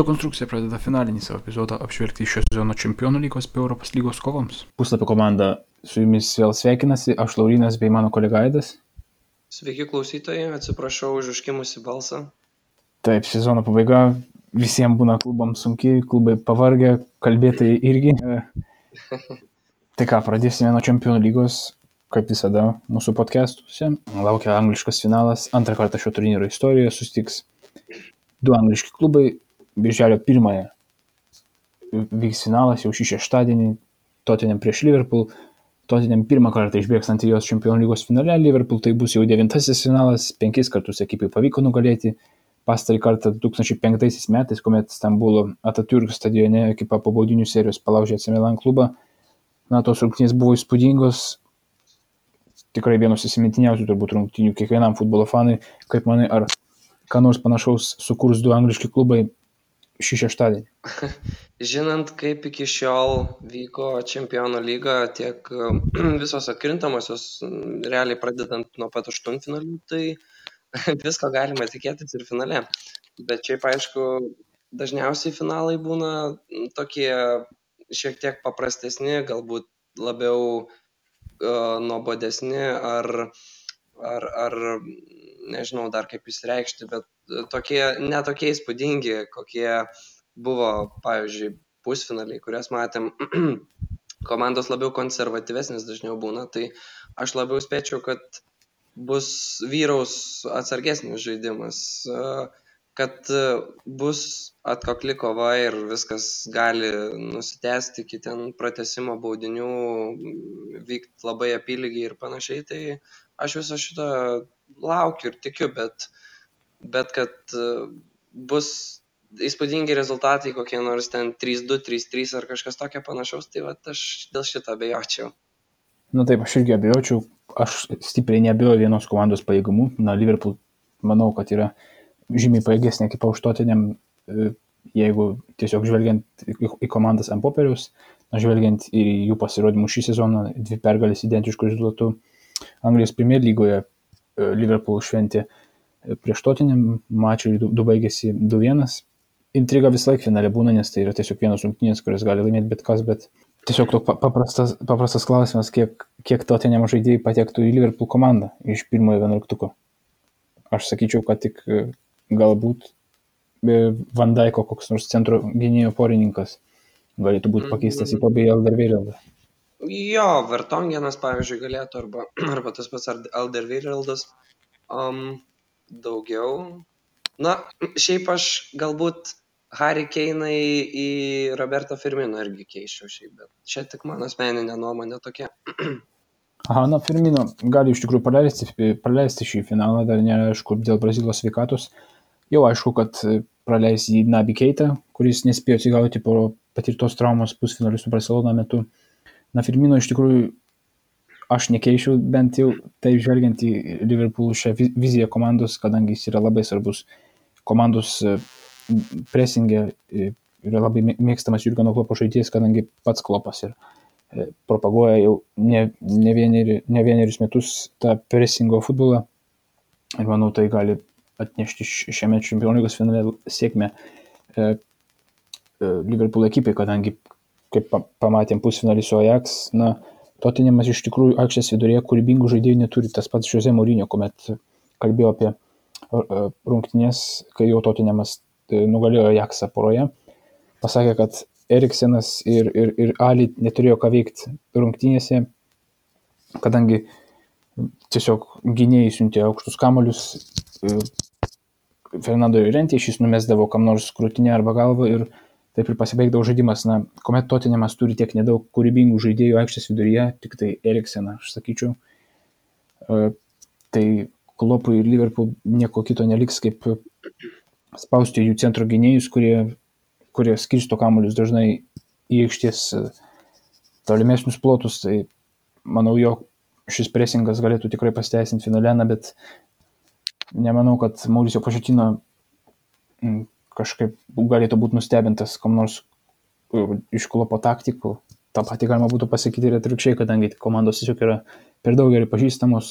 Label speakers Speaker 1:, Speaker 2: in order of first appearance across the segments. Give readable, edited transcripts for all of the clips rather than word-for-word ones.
Speaker 1: Sporto konstrukcija pradeda finalinį savo epizodą apžvelgti šio sezono Čempionų lygos bei Europos lygos kovoms. Puslapio komanda su jumis vėl sveikinasi, aš Laurynas bei mano kolega Aidas.
Speaker 2: Sveiki klausytojai, atsiprašau už užkimusį balsą.
Speaker 1: Taip, sezono pabaiga, visiems būna klubams sunkiai, klubai pavargę, kalbėtojai irgi. Tai ką, pradėsime nuo Čempionų lygos, kaip visada mūsų podcastuose. Laukia angliškas finalas, antrą kartą šio turnyro istorijoje susitiks du angliški klubai. Birželio 1 vyks finalas jau šį šeštadienį, Tottenham prieš Liverpool. Tottenham pirmą kartą išbėgs Antrijos Čempionų lygos finale, Liverpool tai bus jau 9-asis finalas, 5 kartus ekipai pavyko nugalėti. Pastarį kartą 2005 metais, kuomet Stambulo Atatürk stadione ekipa po baudinių serijos palaužė AC Milan klubą. Tos rungtynės buvo įspūdingos, tikrai vienos įsimintiniausių turbūt rungtynių kiekvienam futbolo fanui. Kaip manai, ar ką nors panašaus sukurs du angliški klubai šį šeštadienį?
Speaker 2: Žinant, kaip iki šiol vyko Čempionų lyga, tiek visos atkrintamosios, realiai pradedant nuo pat aštuntfinalių, tai visko galima tikėtis ir finale. Bet šiaip aišku, dažniausiai finalai būna tokie šiek tiek paprastesni, galbūt labiau nuobodesni ar nežinau dar kaip išsireikšti, bet netokie įspūdingi, kokie buvo, pavyzdžiui, pusfinaliai, kurias matėm. Komandos labiau konservatyvesnis dažniau būna, tai aš labiau spėčiau, kad vyraus atsargesnis žaidimas, kad bus atkakli kova ir viskas gali nusitęsti iki ten pratęsimo baudinių, vykti labai apylygiai ir panašiai, tai aš viso šito laukiu ir tikiu, bet kad bus įspūdingi rezultatai, kokie nors ten 3-2, 3-3 ar kažkas tokio panašaus, tai aš dėl šito abejočiau.
Speaker 1: Taip, aš irgi abejočiau, aš stipriai neabejoju vienos komandos pajėgumu. Liverpool manau, kad yra žymiai pajėgesnė ekipa už Tottenham, jeigu tiesiog žvelgiant į komandas ant popieriaus, žvelgiant į jų pasirodymus šį sezoną, 2 pergalės identiškų rezultatų. Anglijos Premier lygoje Liverpool šventė prieš Tottenham, mačai 2 baigėsi 2-1. Intriga visą laiką finale būna, nes tai yra tiesiog vienos rungtynės, kurias gali laimėti bet kas, bet tiesiog paprastas klausimas, kiek Tottenham žaidėjai patektų į Liverpool komandą iš pirmojo 11. Aš sakyčiau, kad tik galbūt Van Dijko koks nors centro gynėjo porininkas galėtų būti pakeistas į Toby Alderweireldą.
Speaker 2: Jo, Vertongenas, pavyzdžiui, galėtų, arba tas pats Alderweireldas. Daugiau. Šiaip aš galbūt Harry Kane'ai į Roberto Firmino irgi keisčiau šiaip, bet čia tik mano asmeninė nuomonė tokia.
Speaker 1: Firmino gali iš tikrųjų praleisti šį finalą, dar neaišku dėl Brazilijos sveikatos. Jau aišku, kad praleis į Naby Keitą, kuris nespėjo atsigauti po patirtos traumos pusfinalių su Barcelona metu. Firmino iš tikrųjų aš nekeičiau, bent jau taip žvelgiant į Liverpool šią viziją komandos, kadangi jis yra labai svarbus komandos presingė, yra labai mėgstamas Jurgeno Kloppo žaidėjas, kadangi pats Kloppas ir propaguoja jau ne vienerius metus tą presingo futbolą. Ir manau, tai gali atnešti šiame Čempionų lygos finale sėkmę Liverpool ekipai, kadangi, kaip pamatėm pusfinalį su Ajax, Tottenhamas iš tikrųjų aikštės viduryje kūrybingų žaidėjų neturi. Tas pats Jose Mourinho, kuomet kalbėjo apie rungtynės, kai jau Tottenhamas nugalėjo Ajaxą poroje, pasakė, kad Eriksenas ir Ali neturėjo ką veikti rungtynėse, kadangi tiesiog gynėjai siuntė aukštus kamuolius Fernando Llorente, šis numesdavo kam nors krūtinę arba galvą ir taip ir pasibaigdavo žaidimas. Kuomet Tottenhamas turi tiek nedaug kūrybingų žaidėjų aikštės viduryje, tik tai Erikseną, aš sakyčiau, tai Kloppui ir Liverpool nieko kito neliks, kaip spausti jų centro gynėjus, kurie skirsto kamuolius dažnai į aikštės tolimesnius plotus. Tai manau, jog šis presingas galėtų tikrai pasiteisinti finale, bet nemanau, kad Mauricio Pochettino kažkaip galėtų būti nustebintas kam nors iš Kloppo taktikų. Ta pati galima būtų pasakyti ir atvirkščiai, kadangi komandos tiesiog yra per daug gerai pažįstamos.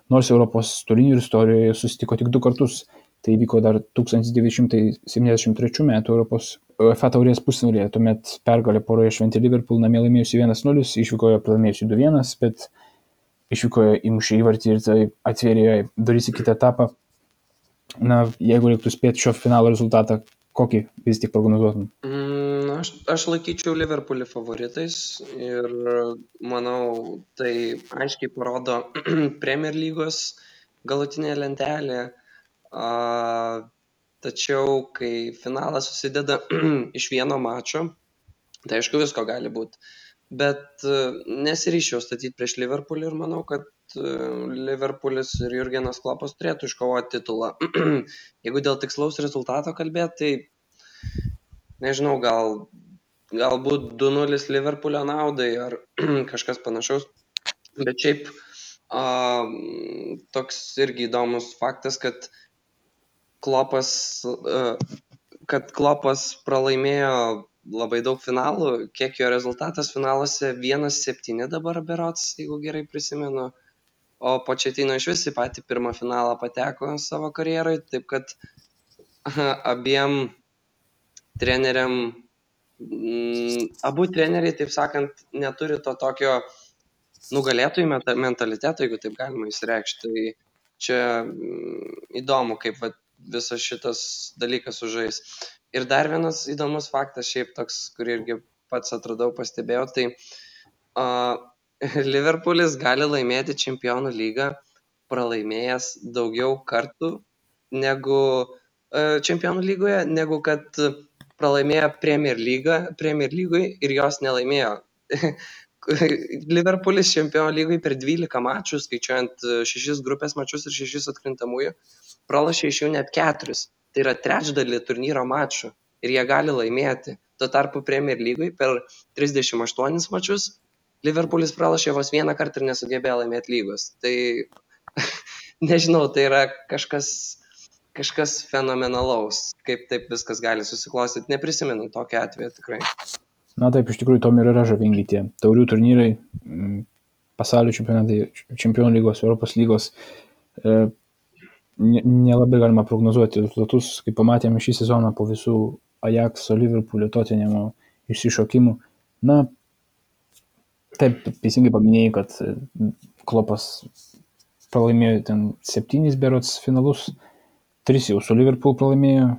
Speaker 1: Nors Europos turnyro istorijoje susitiko tik 2 kartus Tai įvyko dar 1973 metų Europos UEFA taurės pusfinalyje, tuomet pergalę poroje šventė Liverpool, namie laimėjusi 1-0, išvykoje pralaimėjusi 2-1, bet išvykoje įmušė įvartį ir tai atvėrė duris į kitą etapą. Na, jeigu reiktų spėti šio finalo rezultatą, kokį vis tik prognozuotum?
Speaker 2: Aš laikyčiau Liverpoolį favoritais ir manau, tai aiškiai parodo Premier lygos galutinė lentelė. Tačiau, kai finalas susideda iš vieno mačo, tai aišku visko gali būti. Bet nesiryščiau statyti prieš Liverpoolį ir manau, kad Liverpoolis ir Jurgenas Kloppas turėtų iškovoti titulą. Jeigu dėl tikslaus rezultato kalbėti, tai nežinau, galbūt 2-0 Liverpoolio naudai ar kažkas panašaus. Bet šiaip toks irgi įdomus faktas, kad Kloppas pralaimėjo labai daug finalų, kiek jo rezultatas finaluose 1-7 dabar berods, jeigu gerai prisimenu, o Pochettino iš vis į patį pirmą finalą pateko savo karjerai, taip kad abiem treneriam, abu treneriai, taip sakant, neturi to tokio nugalėtojų mentaliteto, jeigu taip galima įsireikšti. Tai čia įdomu, kaip visas šitas dalykas užžais. Ir dar vienas įdomus faktas, šiaip toks, kurį irgi pats atradau, pastebėjau, tai Liverpoolis gali laimėti Čempionų lygą pralaimėjęs daugiau kartų negu Čempionų lygoje, negu kad pralaimėjo Premier lygui ir jos nelaimėjo. Liverpoolis Čempionų lygai per 12 mačų, skaičiuojant 6 grupės mačus ir 6 atkrintamųjų, pralošė iš jų net 4. Tai yra trečdalį turnyro mačų ir jie gali laimėti. Tuo tarpu Premier lygui per 38 mačus Liverpoolis pralošė vos vieną kartą ir nesugebėjo laimėti lygos. Tai nežinau, tai yra kažkas fenomenalaus, kaip taip viskas gali susiklostyti. Neprisimenu tokio atveju tikrai.
Speaker 1: Na taip, iš tikrųjų, tom ir yra žavingi tie taurių turnyrai, pasaulio čempionatai, Čempionų lygos, Europos lygos. Nelabai galima prognozuoti rezultatus, kaip pamatėme šį sezoną po visų Ajaxo, Liverpoolio, Tottenhamo išsišokimų. Na, taip, teisingai paminėjai, kad Kloppas pralaimėjo ten 7 berods finalus, 3 jau su Liverpool pralaimėjo,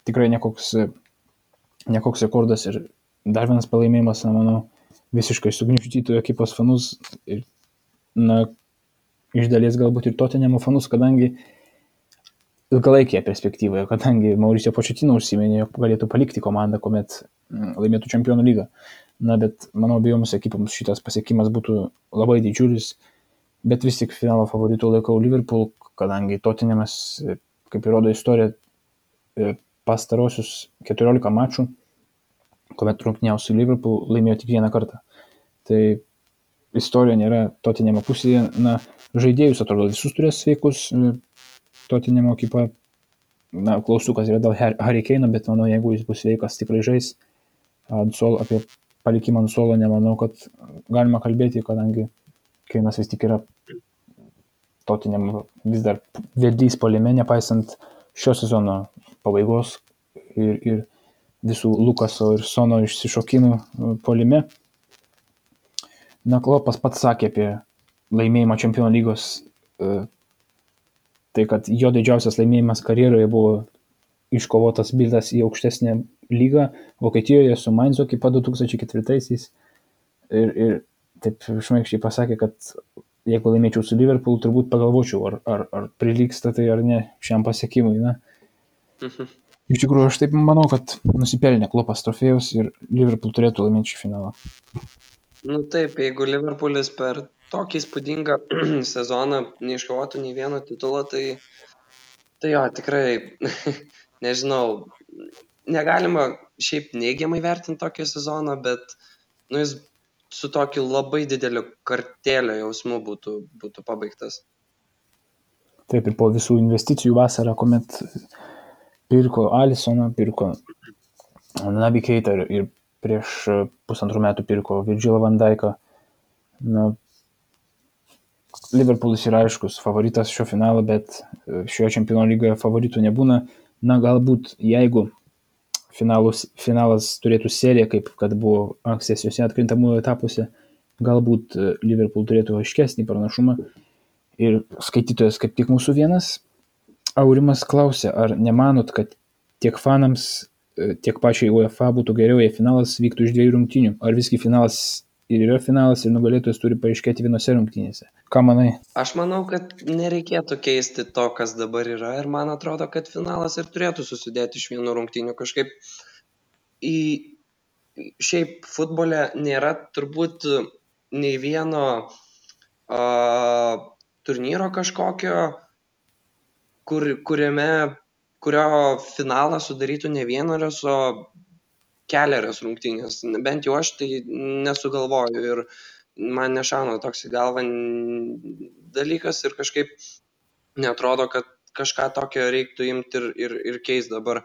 Speaker 1: tikrai nekoks rekordas ir dar vienas pralaimėjimas, na, manau, visiškai sugniuždytų ekipos fanus ir, na, iš dalies galbūt ir Tottenhamo fanus, kadangi ilgalaikėje perspektyvoje, kadangi Mauricio Pochettino užsiminė, jog galėtų palikti komandą, kuomet laimėtų Čempionų lygą. Na, bet manau, abiejoms ekipoms šitas pasiekimas būtų labai didžiulis, bet vis tik finalo favoritų laikau Liverpool, kadangi Tottenhamas, kaip įrodo istorija, pastarosius 14 mačų, kuomet rungtyniavo su Liverpool, laimėjo tik vieną kartą. Tai istorija nėra Tottenhamo pusėje. Na, žaidėjus atrodo visus turės sveikus, Tottenhamo ekipa, na, klaustukas yra dėl Harry Kane'o, bet manau, jeigu jis bus sveikas, tikrai žais. Apie palikimą ant suolo nemanau, kad galima kalbėti, kadangi Kane'as vis tik yra Tottenhamo vis dar vedlys puolime, nepaisant šio sezono pabaigos ir visų Lukaso ir Sono išsišokimų puolime. Na, Kloppas pats sakė apie laimėjimą Čempionų lygos, tai kad jo didžiausias laimėjimas karjeroje buvo iškovotas bildas į aukštesnę lygą Vokietijoje su Mainzo ekipa 2004-aisiais ir taip šmaikščiai pasakė, kad jeigu laimėčiau su Liverpool, turbūt pagalvočiau, ar prilygsta tai ar ne šiam pasiekimui. Na. Iš tikrųjų, aš taip manau, kad nusipelnė Kloppas trofėjus ir Liverpool turėtų laimėti šį finalą.
Speaker 2: Nu taip, jeigu Liverpoolis per tokį įspūdingą sezoną neiškovotų nei vieno titulo, tai jo, tikrai, nežinau, negalima šiaip neigiamai vertinti tokio sezono, bet jis su tokiu labai dideliu kartėlio jausmu būtų pabaigtas.
Speaker 1: Taip, ir po visų investicijų vasarą, kuomet pirko Alissoną, pirko Naby Keitą ir prieš 1,5 metų pirko Virgilą van Dijką. Na, Liverpoolis yra aiškus favoritas šio finalo, bet šioje čempionų lygoje favoritų nebūna. Na, galbūt jeigu finalas turėtų seriją, kaip kad buvo ankstesniuose atkrintamųjų etapuose, galbūt Liverpool turėtų aiškesnį pranašumą. Ir skaitytojas kaip tik mūsų vienas, Aurimas klausė, ar nemanot, kad tiek fanams, tiek pačiai UEFA būtų geriau, jei finalas vyktų iš 2 rungtynių? Ar visgi finalas ir yra finalas ir nugalėtojas turi paaiškėti vienose rungtynėse? Ką manai?
Speaker 2: Aš manau, kad nereikėtų keisti to, kas dabar yra ir man atrodo, kad finalas ir turėtų susidėti iš 1 rungtynių. Kažkaip šiaip futbole nėra turbūt nei vieno turnyro kažkokio, kurio finalą sudarytų ne 1, o keliarios rungtynės. Bent jau aš tai nesugalvoju ir man nešauna toks į galvą dalykas ir kažkaip neatrodo, kad kažką tokio reiktų imti ir keisti dabar.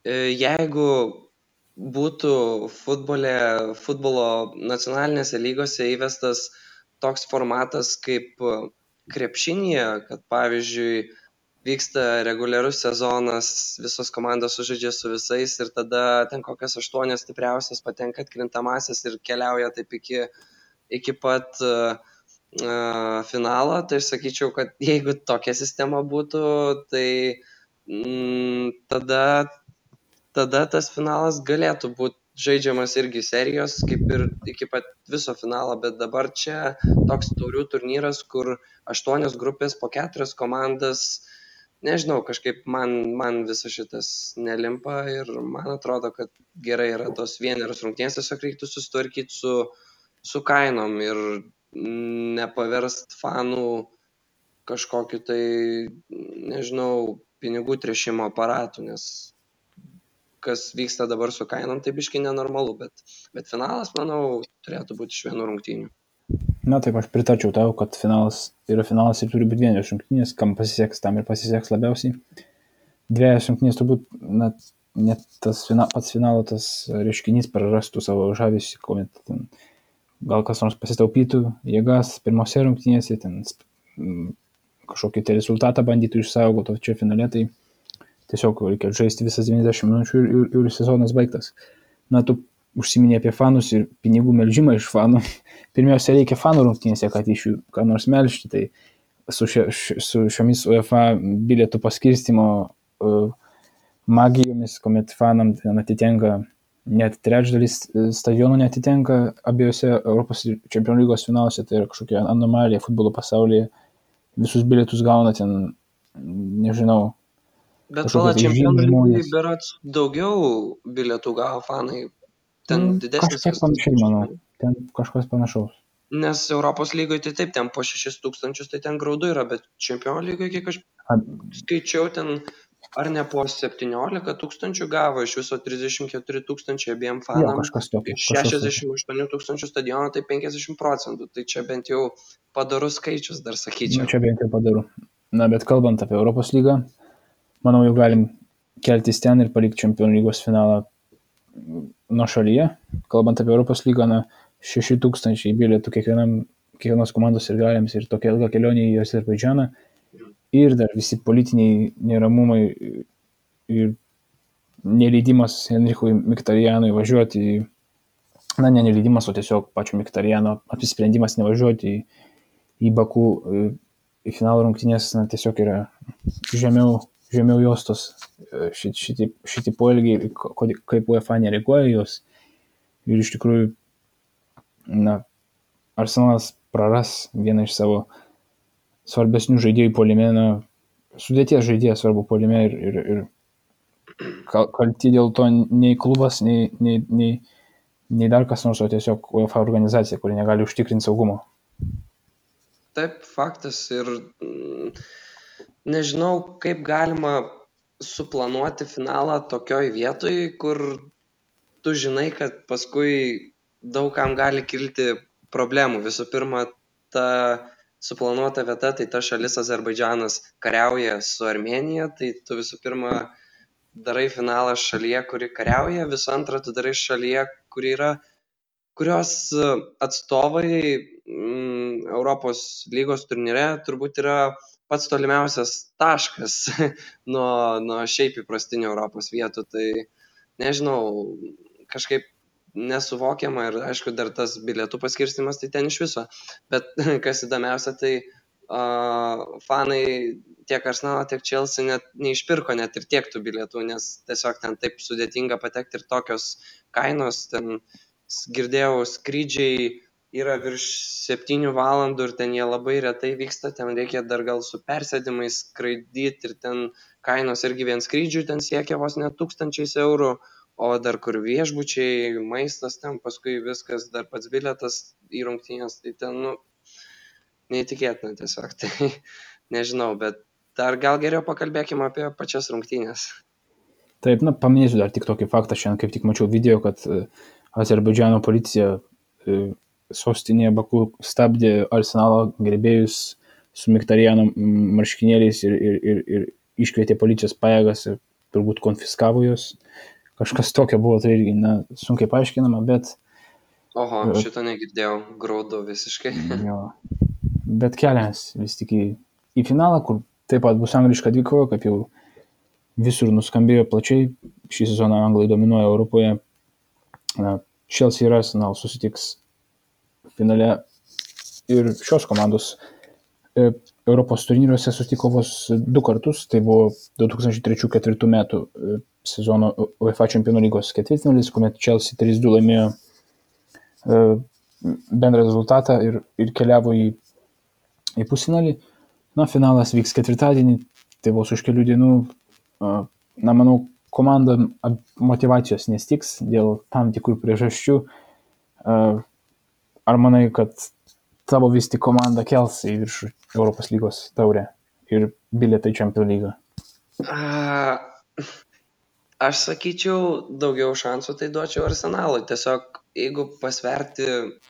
Speaker 2: Jeigu būtų futbolo nacionalinėse lygose įvestas toks formatas kaip krepšinyje, kad pavyzdžiui vyksta reguliarus sezonas, visos komandos sužaidžia su visais ir tada ten kokias 8 stipriausias patenka atkrintamąsias ir keliauja taip iki pat finalo, tai aš sakyčiau, kad jeigu tokia sistema būtų, tai tada tas finalas galėtų būti žaidžiamas irgi serijos, kaip ir iki pat viso finalo, bet dabar čia toks taurių turnyras, kur 8 grupės po 4 komandas, nežinau, kažkaip man visas šitas nelimpa ir man atrodo, kad gerai yra tos 1 rungtynės, tiesiog reiktų susitvarkyti su kainom ir nepaverst fanų kažkokiu tai, nežinau, pinigų tręšimo aparatu, nes kas vyksta dabar su kainom, tai biškai nenormalu, bet finalas, manau, turėtų būti iš 1 rungtynių.
Speaker 1: Na taip, aš pritarčiau tau, kad finalas yra finalas ir turi būti 1 rungtynės, kam pasiseks, tam ir pasiseks labiausiai. 2 rungtynės turbūt, net pats finalo tas reiškinys prarastų savo žavesį, kuomet gal kas nors pasitaupytų jėgas pirmose rungtynėse, ten kažkokį tai rezultatą bandytų išsaugoti, o čia finale tai tiesiog reikia žaisti visas 90 minučių ir sezonas baigtas. Na, tu užsiminė apie fanus ir pinigų melžimą iš fanų. Pirmiausia, reikia fanų rungtynėse, kad iš jų ką nors melžti. Tai su šiomis UEFA bilietų paskirstimo magijomis, kuomet fanam atitenka net trečdalis stadionų neatitenka abiejose Europos čempionų lygos finaluose, tai yra kažkokia anomalija futbolo pasaulyje. Visus bilietus gauna ten, nežinau.
Speaker 2: Bet pala čempionų lygoje berods daugiau bilietų gavo fanai. Ten didesnis.
Speaker 1: Kažkiek panašiai, manau. Ten kažkas panašaus.
Speaker 2: Nes Europos lygoje tai taip, ten po 6 000 tai ten graudu yra, bet čempionų lygoje, kiek aš skaičiau, ten ar ne po 17 000 gavo, iš viso 34 000 abiem fanam, iš 68 000 stadiono, tai 50%. Tai čia bent jau padarus skaičius, dar sakyčiau.
Speaker 1: Čia bent jau padaru. Na, bet kalbant apie Europos lygą, manau, jau galim keltis ten ir palikti čempionų lygos finalą nuo šalyje. Kalbant apie Europos lygą, 6 000 bilietų kiekvienos komandos ir galėms ir tokia ilga kelionė į Azerbaidžaną. Ir dar visi politiniai neramumai ir neleidimas Henrichui Mkhitaryanui važiuoti, ne neleidimas, o tiesiog pačio Mkhitarjano apsisprendimas nevažiuoti į Baku į finalo rungtynės, tiesiog yra žemiau juostos šitie poelgiai, kaip UEFA nereaguoja jos. Ir iš tikrųjų, Arsenalas praras vieną iš savo svarbesnių žaidėjų puolime, sudėties žaidėjas svarbu puolime ir kalti dėl to nei klubas, nei dar kas nors, o tiesiog UEFA organizacija, kuri negali užtikrinti saugumo.
Speaker 2: Taip, faktas ir nežinau, kaip galima suplanuoti finalą tokioj vietoj, kur tu žinai, kad paskui daugam gali kilti problemų. Visų pirma, ta suplanuota vieta, tai ta šalis Azerbaidžanas kariauja su Armėnija, tai tu visų pirma darai finalą šalyje, kuri kariauja, visų antra, tu darai šalyje, kurios atstovai Europos lygos turnyre turbūt yra pats tolimiausias taškas nuo šiaip įprastinių Europos vietų. Tai nežinau, kažkaip nesuvokiama ir aišku dar tas bilietų paskirstimas tai ten iš viso. Bet kas įdomiausia, tai fanai tiek Arsenalo, tiek Chelsea net neišpirko net ir tiek tų bilietų, nes tiesiog ten taip sudėtinga patekti ir tokios kainos. Ten girdėjau, skrydžiai yra virš 7 valandų ir ten jie labai retai vyksta, ten reikia dar gal su persėdimais skraidyti ir ten kainos irgi vien skrydžių ten siekia vos net 1000 eurų, o dar kur viešbučiai, maistas ten, paskui viskas, dar pats bilietas į rungtynės, tai ten, neįtikėtina tiesiog, tai nežinau, bet dar gal geriau pakalbėkime apie pačias rungtynės.
Speaker 1: Taip, paminėsiu dar tik tokį faktą, šiandien kaip tik mačiau video, kad Azerbaidžano policija sostinėje Baku stabdė Arsenalo gerbėjus su Miktariano marškinėliais ir iškvietė policijos pajėgas ir turbūt konfiskavo juos. Kažkas tokio buvo, tai irgi sunkiai paaiškinama, bet...
Speaker 2: Oho, šito negirdėjau, graudu visiškai.
Speaker 1: Jo. Bet kelias vis tik į finalą, kur taip pat bus angliška dvikova, kaip jau visur nuskambėjo plačiai. Šį sezoną anglai dominuoja Europoje. Chelsea ir Arsenal susitiks finale ir šios komandos Europos turnyruose susitiko vos 2 kartus. Tai buvo 2003-2004 metų sezono UEFA Čempionų lygos ketvirtfinalis, kuomet Chelsea 3-2 laimėjo bendrą rezultatą ir keliavo į pusfinalį. Finalas vyks ketvirtadienį, tai vos už kelių dienų. Manau, komanda motyvacijos nestiks dėl tam tikrų priežasčių. Ar manai, kad tavo vis tik komanda kels į viršų Europos lygos taurę ir bilietą į Čempionų lygą?
Speaker 2: Aš sakyčiau, daugiau šansų tai duočiau Arsenalui. Tiesiog, jeigu pasverti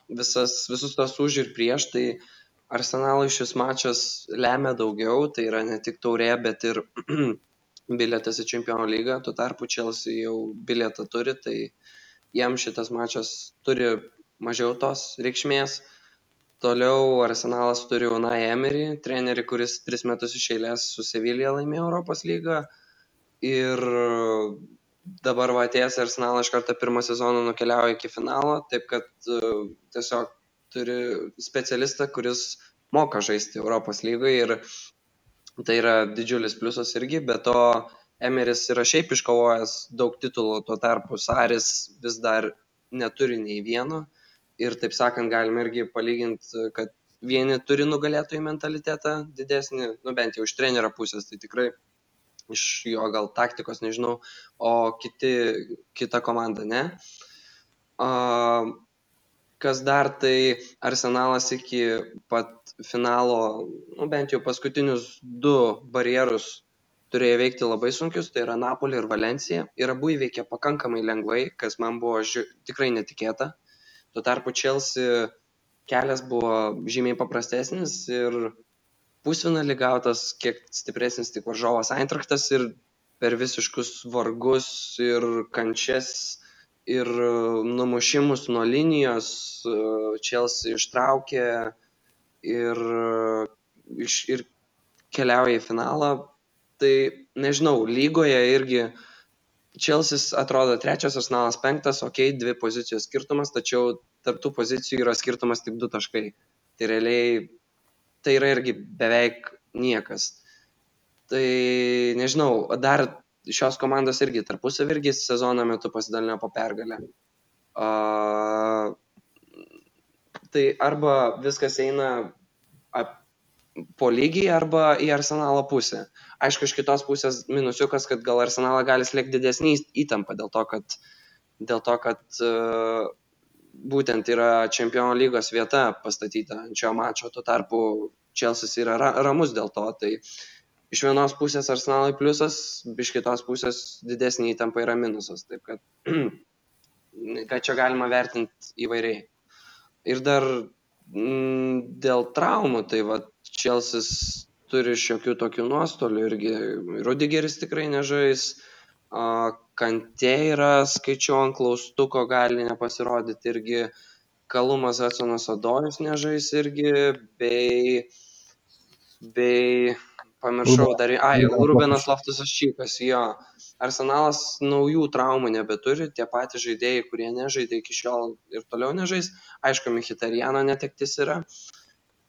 Speaker 2: visus tos už ir prieš, tai Arsenalui šis mačas lemia daugiau. Tai yra ne tik taurė, bet ir bilietas į Čempionų lygą. Tuo tarpu Chelsea jau bilietą turi, tai jam šitas mačas turi mažiau tos reikšmės. Toliau Arsenalas turi Unai Emery, trenerį, kuris 3 metus iš eilės su Sevilla laimėjo Europos lygą. Ir dabar atėjęs Arsenalą iš karto pirmą sezoną nukeliauja iki finalo, taip kad tiesiog turi specialistą, kuris moka žaisti Europos lygoje ir tai yra didžiulis pliusas irgi, bet to Emeris yra šiaip iškovojęs daug titulų, tuo tarpu Saris vis dar neturi nei vieno ir taip sakant galime irgi palyginti, kad vieni turi nugalėtojų mentalitetą didesnį, bent jau iš trenerio pusės, tai tikrai iš jo gal taktikos, nežinau, o kita komanda ne. Kas dar, tai Arsenalas iki pat finalo, bent jau paskutinius 2 barjerus turėjo veikti labai sunkius, tai yra Napoli ir Valencija. Ir abu įveikė pakankamai lengvai, kas man buvo tikrai netikėta. Tuo tarpu Chelsea kelias buvo žymiai paprastesnis ir pusfinalį gautas kiek stipresnis tik varžovas Eintrachtas ir per visiškus vargus ir kančias ir numušimus nuo linijos Chelsea ištraukė ir keliauja į finalą. Tai nežinau, lygoje irgi Chelsea atrodo 3, Arsenalas 5, 2 pozicijos skirtumas, tačiau tarp tų pozicijų yra skirtumas tik 2 taškai. Tai realiai tai yra irgi beveik niekas. Tai nežinau, dar šios komandos irgi tarpusavy irgi sezono metu pasidalino po pergalę. Tai arba viskas eina po lygiai, arba į Arsenalo pusę. Aišku, iš kitos pusės minusiukas, kad gal Arsenalą gali slėgti didesnį įtampą dėl to, kad būtent yra Čempionų lygos vieta pastatyta ant šio mačo, tuo tarpu Chelsea yra ramus dėl to. Tai iš vienos pusės Arsenalui pliusas, iš kitos pusės didesnė įtampa yra minusas. Taip kad čia galima vertinti įvairiai. Ir dar dėl traumų, tai Chelsea turi šiokių tokių nuostolių irgi. Rudigeris tikrai nežais. Kantė yra, skaičiau ant klaustuko, gali nepasirodyti irgi. Kalumas Hudsonas Odojus nežais irgi, bei pamiršau dar, Rubenas Loftus-Cheekas, jo. Arsenalas naujų traumų nebeturi, tie patys žaidėjai, kurie nežaidė iki šiol ir toliau nežais. Aišku, Mkhitarjano netektis yra,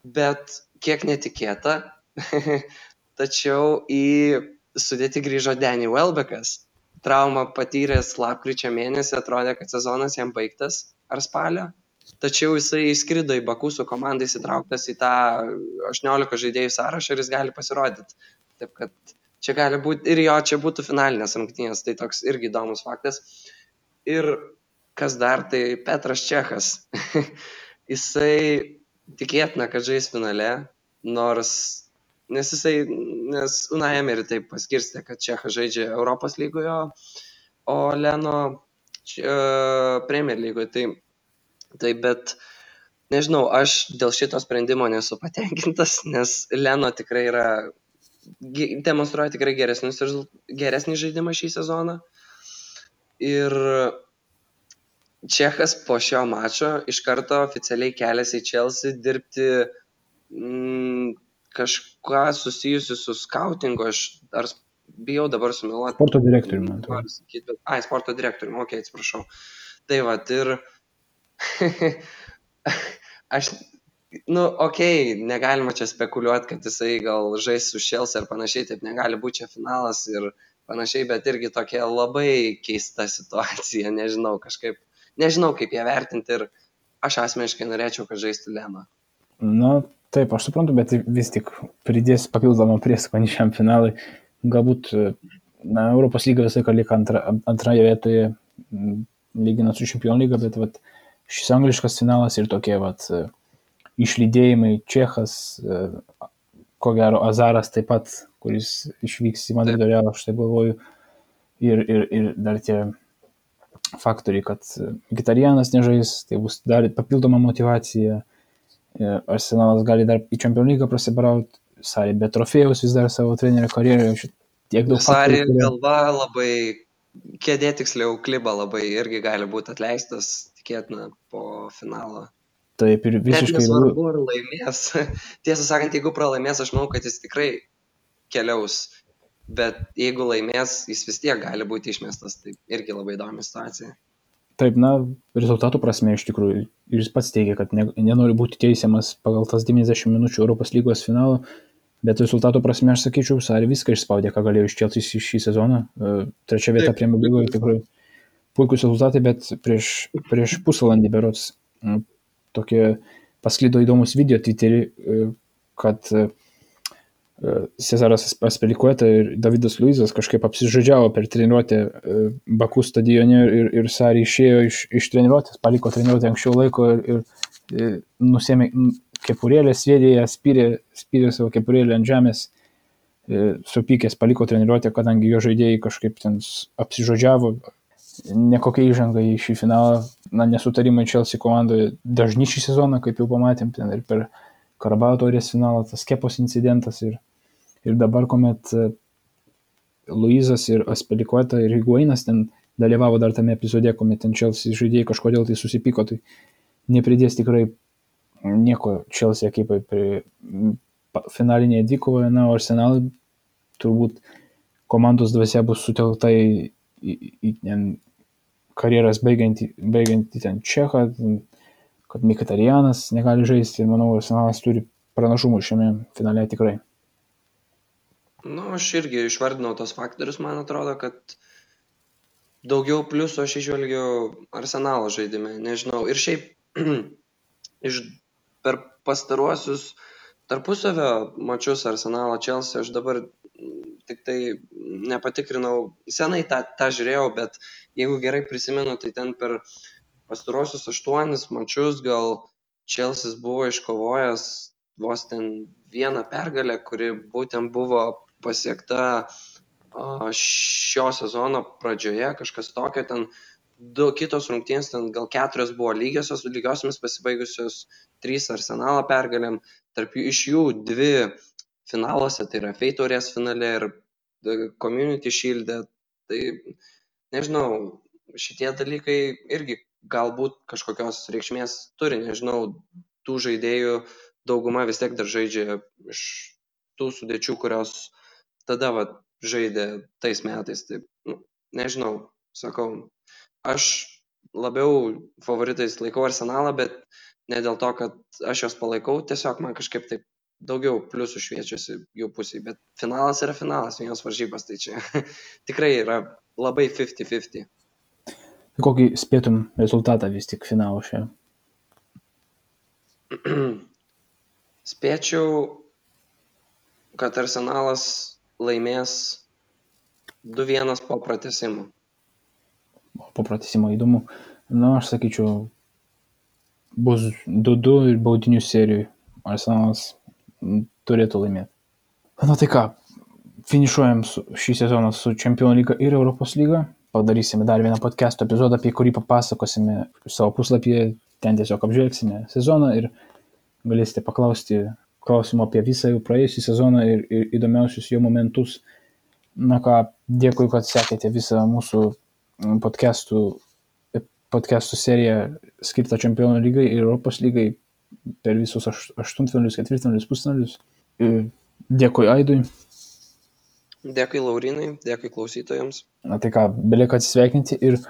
Speaker 2: bet kiek netikėta, tačiau į sudėtį grįžo Danny Welbeckas. Traumą patyręs lapkričio mėnesį, atrodė, kad sezonas jam baigtas ar spalio. Tačiau jisai įskrido į Baku su komandai įsitrauktas į tą 18 žaidėjų sąrašą ir jis gali pasirodyti. Taip kad čia gali būti ir jo, čia būtų finalinės rungtynės, tai toks irgi įdomus faktas. Ir kas dar, tai Petras Čechas. Jisai tikėtina, kad žais finale, nes Unai Emery taip paskirstė, kad Čechas žaidžia Europos lygoje, o Leno Premier lygoje. Tai bet, nežinau, aš dėl šito sprendimo nesu patenkintas, nes Leno tikrai demonstruoja tikrai geresnį žaidimą šį sezoną. Ir Čechas po šio mačo iš karto oficialiai keliasi į Chelsea dirbti kažką susijusiu su skautingu, ar bijau dabar sumeluoti.
Speaker 1: Sporto direktoriumi.
Speaker 2: Sporto direktoriumi, atsiprašau. Tai va, ir aš, negalima čia spekuliuoti, kad jisai gal žais su Chelsea ar panašiai, taip negali būti čia finalas ir panašiai, bet irgi tokia labai keista situacija, nežinau kaip ją vertinti ir aš asmeniškai norėčiau, kad žaistų Leno.
Speaker 1: Taip, aš suprantu, bet vis tik pridės papildomą prieskonį šiam finalui. Galbūt Europos lyga visai lieka antroje vietoje lyginant su Čempionų lyga, bet šis angliškas finalas ir tokie išlydėjimai, Čechas, ko gero Azaras taip pat, kuris išvyks į Madrido Realą, aš taip galvoju, ir dar tie faktoriai, kad Mkhitarjanas nežais, tai bus dar papildoma motivacija, Arsenalas gali dar į Čempionų lygą prasibrauti, Sarri be trofėjaus vis dar savo trenerio karjeroje, tiek daug
Speaker 2: faktorių. Sarri galva labai, kėdė tiksliau kliba labai irgi gali būti atleistas, tikėtina, po finalo.
Speaker 1: Taip, ir visiškai...
Speaker 2: Net nesvarbu, ar laimės. Tiesą sakant, jeigu pralaimės, aš manau, kad jis tikrai keliaus, bet jeigu laimės, jis vis tiek gali būti išmestas, tai irgi labai įdomi situacija.
Speaker 1: Taip, rezultatų prasme iš tikrųjų, ir jis pats teigia, kad nenori būti teisiamas pagal tas 90 minučių Europos lygos finalo, bet rezultatų prasme aš sakyčiau, Sarri viską išspaudė, ką galėjo iš Chelsea šį sezoną. Trečia vieta Premier lygoje tikrai puikus rezultatai, bet prieš pusvalandį berods tokie pasklido įdomus video Twitter'į, kad Cezaras Azpilicueta ir Davidas Luizas kažkaip apsižodžiavo per treniruotę Baku stadione ir Sarri išėjo iš treniruotės, paliko treniruotę anksčiau laiko ir nusėmė kepurėlę, sviedė ją, spyrė savo kepurėlę ant žemės, supykęs paliko treniruotę, kadangi jo žaidėjai kažkaip ten apsižodžiavo. Nekokia įžanga į šį finalą, nesutarimai Chelsea komandoje dažni šį sezoną, kaip jau pamatėm, ten ir per Karabao taurės finalą, tas Kepos incidentas ir dabar, kuomet Luizas ir Azpilicueta ir Higuainas ten dalyvavo dar tame epizode, kuomet ten Chelsea žaidėjai kažkodėl tai susipyko, tai nepridės tikrai nieko Chelsea ekipai finalinėje dvikovoje, o Arsenalui turbūt komandos dvasia bus sutelkta į karjeras baigiantį ten Čechą, kad Mkhitarjanas negali žaisti ir manau, Arsenalas turi pranašumų šiame finale tikrai.
Speaker 2: Aš irgi išvardinau tos faktorius, man atrodo, kad daugiau pliusų aš išvelgiu Arsenalo žaidime, nežinau. Ir šiaip per pastaruosius tarpusavio mačius Arsenalo Chelsea, aš dabar tik tai nepatikrinau, senai tą žiūrėjau, bet jeigu gerai prisimenu, tai ten per pastaruosius 8 mačius gal Chelsea buvo iškovojęs vos ten vieną pergalę, kuri būtent buvo pasiekta šio sezono pradžioje, kažkas tokio, ten 2 kitos rungtynės, ten gal 4 buvo lygiosiomis pasibaigusios, 3 Arsenalo pergalėm, iš jų 2 finaluose, tai yra FA taurės finale ir Community Shield'e, tai nežinau, šitie dalykai irgi galbūt kažkokios reikšmės turi, nežinau, tų žaidėjų dauguma vis tiek dar žaidžia iš tų sudėčių, kurios tada žaidė tais metais. Tai, nežinau, sakau, aš labiau favoritais laikau Arsenalą, bet ne dėl to, kad aš juos palaikau, tiesiog man kažkaip taip daugiau pliusų šviečiasi jų pusėje, bet finalas yra finalas, vienos varžybos, tai čia tikrai yra labai 50-50.
Speaker 1: Kokį spėtum rezultatą vis tik finalo šią?
Speaker 2: Spėčiau, kad Arsenalas laimės 2-1 po pratęsimo.
Speaker 1: Po pratęsimo įdomu. Na, aš sakyčiau, bus 2-2 ir baudinių serijų. Arsenalas turėtų laimėti. Na tai ką, finišuojam šį sezoną su Čempionų lyga ir Europos lyga. Padarysime dar vieną podcast'o epizodą, apie kurį papasakosime savo puslapyje. Ten tiesiog apžvelgsime sezoną ir galėsite paklausti klausimų apie visą jau praėjusį sezoną ir įdomiausius jo momentus. Na ką, dėkui, kad sekėte visą mūsų podcastų seriją skirtą Čempionų lygai ir Europos lygai per visus aštuntfinalius, ketvirtfinalius, pusfinalius. Dėkui Aidui.
Speaker 2: Dėkui Laurinai, dėkui klausytojams.
Speaker 1: Na tai ką, belieka atsisveikinti ir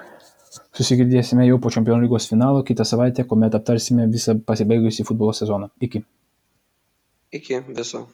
Speaker 1: susigirdėsime jau po Čempionų lygos finalo kitą savaitę, kuomet aptarsime visą pasibaigusį futbolo sezoną. Iki.
Speaker 2: Iki viso.